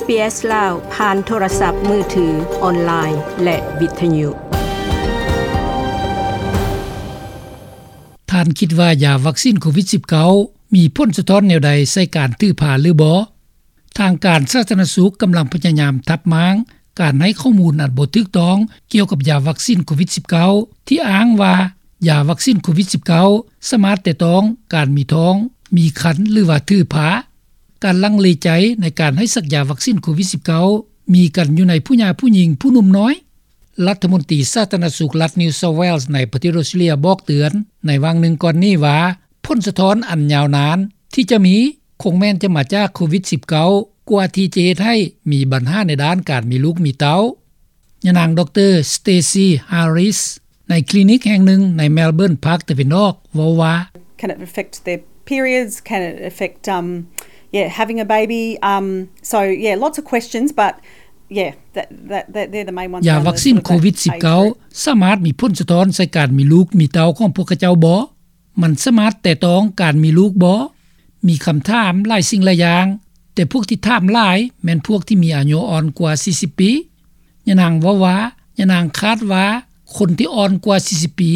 ເອສ ລາວ ຜ່ານໂທລະສັບມືຖື, ອອນລາຍ ແລະ ວິທະຍຸ. ທ່ານຄິດວ່າຢາວັກຊີນໂຄວິດສິບເກົ້າ ມີຜົນສະທ້ອນແນວໃດໃສ່ການຖືພາຫຼືບໍ່? ທາງການສາທາລະນະສຸກກຳລັງພະຍາຍາມທັບມ້າງການໃຫ້ຂໍ້ມູນອັນບໍ່ຖືກຕ້ອງກ່ຽວກັບຢາວັກຊີນໂຄວິດສິບເກົ້າ ທີ່ອ້າງວ່າຢາວັກຊີນໂຄວິດສິບເກົ້າ ສາມາດແຕະຕ້ອງການມີທ້ອງ, ມີຄັນ ຫຼືວ່າຖືພາ. ການລັງເລໃຈໃນການໃຫ້ສັກຢາວັກຊີນໂຄວິດສິບເກົ້າ ມີກັນຢູ່ໃນຜູ້ຫຍ່າຜູ້ຍິງຜູ້ໜຸ່ມນ້ອຍ. ລັດຖະມົນຕີສາທາລະນະສຸກລັດ New South Wales ໃນປະເທດອອສເຕຣເລັຽບອກເຕືອນໃນຫວ່າງໜຶ່ງກ່ອນນີ້ວ່າ ຜົນສະທ້ອນອັນຍາວນານທີ່ຈະມີຄົງແມ່ນຈະມາຈາກໂຄວິດສິບເກົ້າ ກວ່າທີ່ຈະເຮັດໃຫ້ມີບັນຫາໃນດ້ານການມີລູກມີເຕົ້າ. ຍານາງ ດຣ. Stacey Harris ໃນຄລີນິກແຫ່ງໜຶ່ງໃນ Melbourne ພາກຕາເວັນອອກ ເວົ້າວ່າ Can it affect their periods? Can it affect, um, yeah, having a baby? Um, so, yeah, lots of questions, but, yeah, that, that, that, they're the main ones. ຢາວັກຊີນໂຄວິດສິບເກົ້າ ສາມາດມີຜົນສະທ້ອນໃສ່ການມີລູກມີເຕົ້າຂອງພວກເຂົາເຈົ້າບໍ່? ມັນສາມາດແຕະຕ້ອງການມີລູກບໍ່? ມີຄຳຖາມຫຼາຍສິ່ງຫຼາຍຢ່າງ, ແຕ່ພວກທີ່ຖາມຫຼາຍແມ່ນພວກທີ່ມີອາຍຸອ່ອນກວ່າສີ່ສິບປີ. ຍານາງເວົ້າວ່າ ຍານາງຄາດວ່າຄົນທີ່ອ່ອນກວ່າສີ່ສິບປີ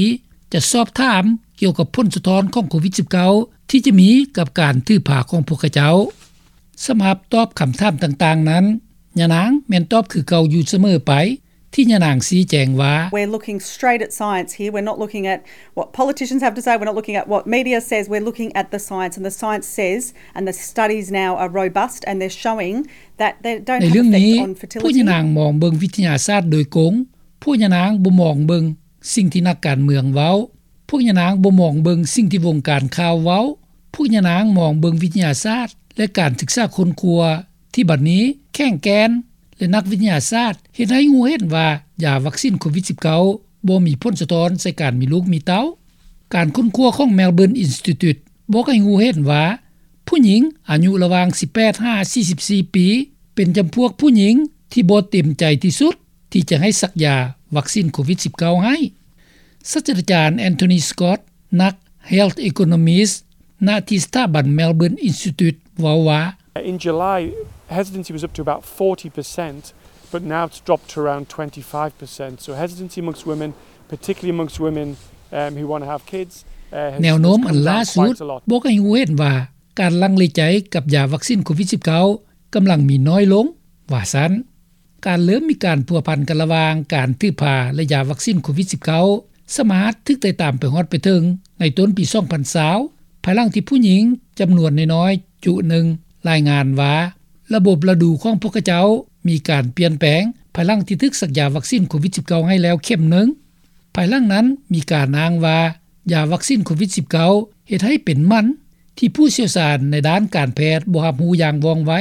ຈະສອບຖາມກ່ຽວກັບຜົນສະທ້ອນຂອງໂຄວິດສິບເກົ້າ ທີ່ຈະມີກັບການຖືພາຂອງພວກເຂົາເຈົ້າ. ສຳລັບຕອບຄຳຖາມຕ່າງໆນັ້ນ, ຍານາງແມ່ນຕອບຄືເກົ່າຢູ່ສະເໝີໄປ, ທີ່ຍານາງຊີ້ແຈງວ່າ We're looking straight at science here. We're not looking at what politicians have to say. We're not looking at what media says. We're looking at the science, and the science says, and the studies now are robust, and they're showing that they don't have effect on fertility. ໃນເລື່ອງນີ້ ພວກຍານາງມອງເບິ່ງວິທະຍາສາດໂດຍກົງ. ພວກຍານາງບໍ່ມອງເບິ່ງສິ່ງທີ່ນັກການເມືອງເວົ້າ. ພວກຍານາງບໍ່ມອງເບິ່ງສິ່ງທີ່ວົງການຂ່າວເວົ້າ. ພວກຍານາງມອງເບິ່ງວິທະຍາສາດ ແລະ ການສຶກສາຄົ້ນຄວ້າ ທີ່ບັດນີ້ແຂງແກ່ນ ແລະ ນັກວິທະຍາສາດເຮັດໃຫ້ຮູ້ເຫັນວ່າ ຢາວັກຊີນໂຄວິດສິບເກົ້າ ບໍ່ມີຜົນສະທ້ອນໃສ່ການມີລູກມີເຕົ້າ. ການຄົ້ນຄວ້າຂອງ Melbourne Institute ບອກໃຫ້ຮູ້ເຫັນວ່າ ຜູ້ຍິງອາຍຸລະຫວ່າງສິບແປດຫາສີ່ສິບສີ່ປີ ເປັນຈຳພວກຜູ້ຍິງທີ່ບໍ່ເຕັມໃຈທີ່ສຸດ ທີ່ຈະໃຫ້ສັກຢາວັກຊີນໂຄວິດສິບເກົ້າໃຫ້. ສາດສະດາຈານ Anthony Scott ນັກ Health Economist ນະທີ່ສະຖາບັນ Melbourne Institute ເວົ້າວ່າ In July, hesitancy was up to about forty percent, but now it's dropped to around twenty-five percent. So hesitancy amongst women, particularly amongst women, um, who wanna have kids, uh, has, ແນວໂນ້ມອັນລ່າສຸດບອກໃຫ້ຮູ້ເຫັນວ່າ ການລັງເລໃຈກັບຢາວັກຊີນໂຄວິດສິບເກົ້າ ກຳລັງມີນ້ອຍລົງ ວ່າຊັ້ນ. ການເລີ່ມມີການພົວພັນກັນລະຫວ່າງການຖືພາ ແລະ ຢາວັກຊີນໂຄວິດສິບເກົ້າ ສາມາດຖືກໄຕ່ຕາມໄປຮອດໄປເຖິງໃນຕົ້ນປີສອງພັນຊາວ ພາຍຫຼັງທີ່ຜູ້ຍິງຈຳນວນນ້ອຍໆຈຸໜຶ່ງລາຍງານວ່າ ລະບົບລະດູຂອງພວກເຂົາເຈົ້າມີການປ່ຽນແປງ ພາຍຫຼັງທີ່ຖືກສັກຢາວັກຊີນໂຄວິດສິບເກົ້າໃຫ້ແລ້ວເຂັມໜຶ່ງ. ພາຍຫຼັງນັ້ນມີການອ້າງວ່າ ຢາວັກຊີນໂຄວິດສິບເກົ້າ ເຮັດໃຫ້ເປັນໝັ້ນ ທີ່ຜູ້ຊ່ຽວຊານໃນດ້ານການແພດບໍ່ຮັບຮູ້ຢ່າງວ່ອງໄວ.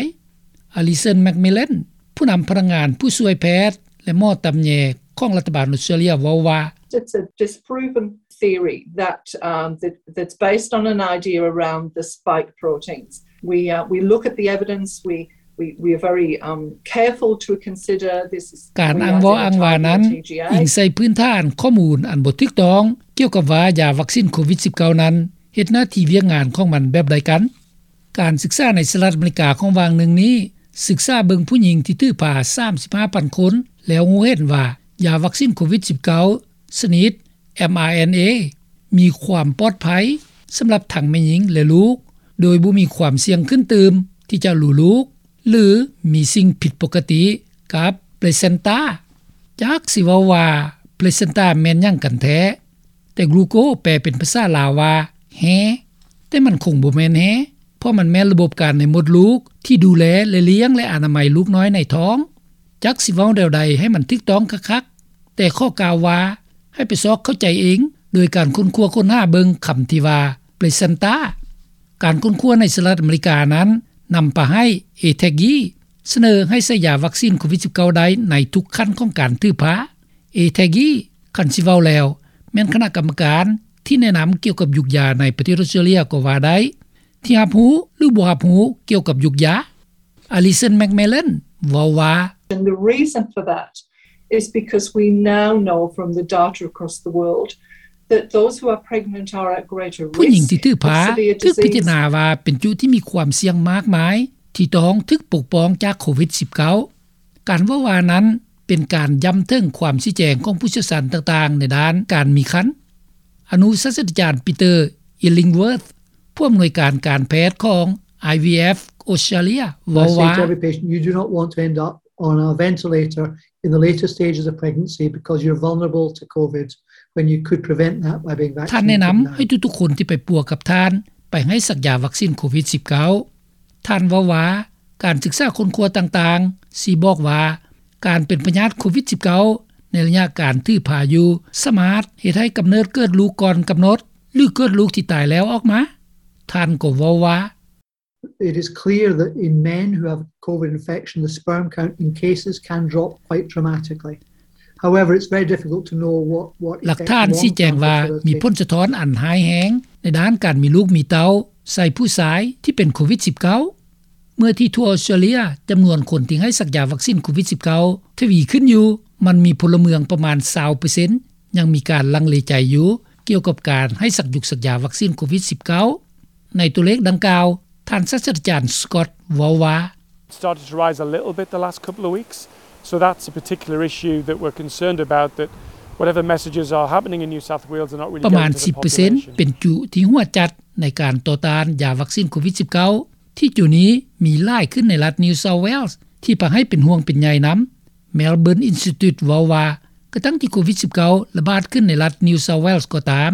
Alison McMillan ຜູ້ນຳພະນັກງານຜູ້ຊ່ວຍແພດ ແລະ ໝໍຕຳແຍຂອງລັດຖະບານອອສເຕຣເລັຽເວົ້າວ່າ It's a disproven theory that, um, that, that's based on an idea around the spike proteins. We, uh, we look at the evidence, we, we, we are very, um, careful to consider this. ການອ້າງເວົ້າອ້າງວ່ານັ້ນ ອີງໃສ່ພື້ນຖານຂໍ້ມູນອັນບໍ່ຖືກຕ້ອງ ກ່ຽວກັບວ່າຢາວັກຊີນໂຄວິດສິບເກົ້ານັ້ນ ເຮັດໜ້າທີ່ວຽກງານຂອງມັນແບບໃດກັນ. ການສຶກສາໃນສະຫະລັດອາເມລິກາຂອງຫວ່າງໜຶ່ງນີ້ ສຶກສາເບິ່ງຜູ້ຍິງທີ່ຖືພາສາມສິບຫ້າພັນຄົນ ແລ້ວຮູ້ເຫັນວ່າ ຢາວັກຊີນໂຄວິດສິບເກົ້າ ຊະນິດ mRNA ມີຄວາມປອດໄພສຳລັບທັງແມ່ຍິງ ແລະ ລູກ ໂດຍບໍ່ມີຄວາມສ່ຽງຂຶ້ນຕື່ມທີ່ຈະຫຼູລູກ ຫຼື ມີສິ່ງຜິດປົກກະຕິກັບ placenta. ຈັກຊິເວົ້າວ່າ placenta ແມ່ນຫຍັງກັນແທ້? ແຕ່ glucose ແປເປັນພາສາລາວວ່າແຮ່, ແຕ່ມັນຄົງບໍ່ແມ່ນແຮ່ ເພາະມັນແມ່ນລະບົບການໃນມົດລູກທີ່ດູແລ ແລະ ລ້ຽງ ແລະ ອະນາໄມລູກນ້ອຍໃນທ້ອງ. ຈັກຊິເວົ້າແນວໃດໃຫ້ມັນຖືກຕ້ອງຄັກໆ, ແຕ່ຂໍກ່າວວ່າ ໃຫ້ໄປຊອກເຂົ້າໃຈເອງ ໂດຍການຄົ້ນຄວ້າຄົ້ນຫາເບິ່ງຄຳທີ່ວ່າ placenta. ການຄົ້ນຄວ້າໃນສະຫະລັດອາເມລິການັ້ນ ນຳພາໃຫ້ ATAGI ສະເໜີໃຫ້ໃສ່ຢາວັກຊີນໂຄວິດສິບເກົ້າໄດ້ໃນທຸກຂັ້ນຂອງການຖືພາ. ATAGI ຄັນຊິເວົ້າແລ້ວ ແມ່ນຄະນະກຳມະການທີ່ແນະນຳກ່ຽວກັບຢຸກຢາໃນປະເທດອອສເຕຣເລັຽກໍວ່າໄດ້ ທີ່ຮັບຮູ້ ຫຼື ບໍ່ຮັບຮູ້ກ່ຽວກັບຢຸກຢາ. Alison McMillan ເວົ້າວ່າ And the reason for that is because we now know from the data across the world that those who are pregnant are at greater risk of severe disease. ຜູ້ຍິງທີ່ຖືພາຖືກພິຈາລະນາວ່າເປັນຈຸທີ່ມີຄວາມສ່ຽງມາກມາຍ ທີ່ຕ້ອງຖືກປົກປ້ອງຈາກໂຄວິດ-19. ການເວົ້າວ່ານັ້ນເປັນການຢ້ຳເຖິງຄວາມຊີ້ແຈງຂອງຜູ້ຊ່ຽວຊານຕ່າງໆໃນດ້ານການມີຄັນ. ອະນຸສາສະຕາຈານ Peter Illingworth ຜູ້ອຳນວຍການການແພດຂອງ IVF Australia ເວົ້າວ່າ You do not want to end up on a ventilator in the later stages of pregnancy because you're vulnerable to COVID when you could prevent that by being vaccinated. ທ່ານແນະນຳໃຫ້ທຸກໆຄົນທີ່ໄປປົວກັບທ່ານໄປໃຫ້ສັກຢາວັກຊິນໂຄວິດ-19. ທ່ານເວົ້າວ່າ ການສຶກສາຄົ້ນຄວ້າຕ່າງໆຊີ້ບອກວ່າ ການເປັນພະຍາດໂຄວິດ-19 ໃນໄລຍະການຖືພາຢູ່ ສາມາດເຮັດໃຫ້ກຳເນີດເກີດລູກກ່ອນກຳນົດ ຫຼືເກີດລູກທີ່ຕາຍແລ້ວອອກມາ. ທ່ານກໍເວົ້າວ່າ It is clear that in men who have COVID infection, the sperm count in cases can drop quite dramatically. However, it's very difficult to know what, what ຫຼັກຖານຊີ້ແຈງວ່າມີຜົນສະທ້ອນອັນຮ້າຍແຮງໃນດ້ານການມີລູກມີເຕົ້າໃສ່ຜູ້ຊາຍທີ່ເປັນໂຄວິດ-19. ເມື່ອທີ່ທົ່ວອອສເຕຣເລັຽຈຳນວນຄົນທີ່ໃຫ້ສັກຢາວັກຊິນໂຄວິດ-19 ທະວີຂຶ້ນຢູ່, ມັນມີພົນລະເມືອງປະມານ 20% ຍັງມີການລັງເລໃຈຢູ່ກ່ຽວກັບການໃຫ້ສັກຍຸກສັກຢາວັກຊິນໂຄວິດ-19. ໃນຕົວເລກດັ່ງກ່າວ, ທ່ານສາສະຕາຈານ Scott ເວົ້າວ່າ Started to rise a little bit the last couple of weeks, so that's a particular issue that we're concerned about, that whatever messages are happening in New South Wales are not really ປະມານ ສິບເປີເຊັນ ເປັນຈຸທີ່ຫົວຈັດໃນການຕໍ່ຕ້ານຢາວັກຊິນໂຄວິດ-19 ທີ່ຈຸນີ້ມີຫຼາຍຂຶ້ນໃນລັດ New South Wales ທີ່ພາໃຫ້ເປັນຫ່ວງເປັນໃຍນຳ. Melbourne Institute ເວົ້າວ່າ ກະທັ່ງທີ່ໂຄວິດ-19 ລະບາດຂຶ້ນໃນລັດ New South Wales ກໍຕາມ,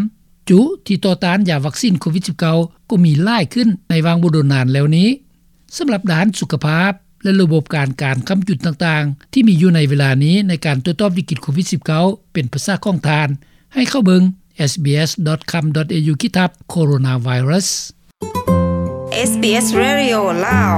ຈຸທີ່ຕໍ່ຕ້ານຢາວັກຊິນໂຄວິດ-19 ກໍມີຫຼາຍຂຶ້ນໃນຫວ່າງບໍ່ດົນນານແລ້ວນີ້. ສຳລັບດ້ານສຸຂະພາບ ແລະ ລະບົບການການຄ້ຳຈຸນຕ່າງໆ ທີ່ມີຢູ່ໃນເວລານີ້ໃນການຕົວຈອບວິກິດໂຄວິດ-19 ເປັນພາສາຂອງທ່ານ, ໃຫ້ເຂົ້າເບິ່ງ sbs.com.au/coronavirus. SBS Radio ລາວ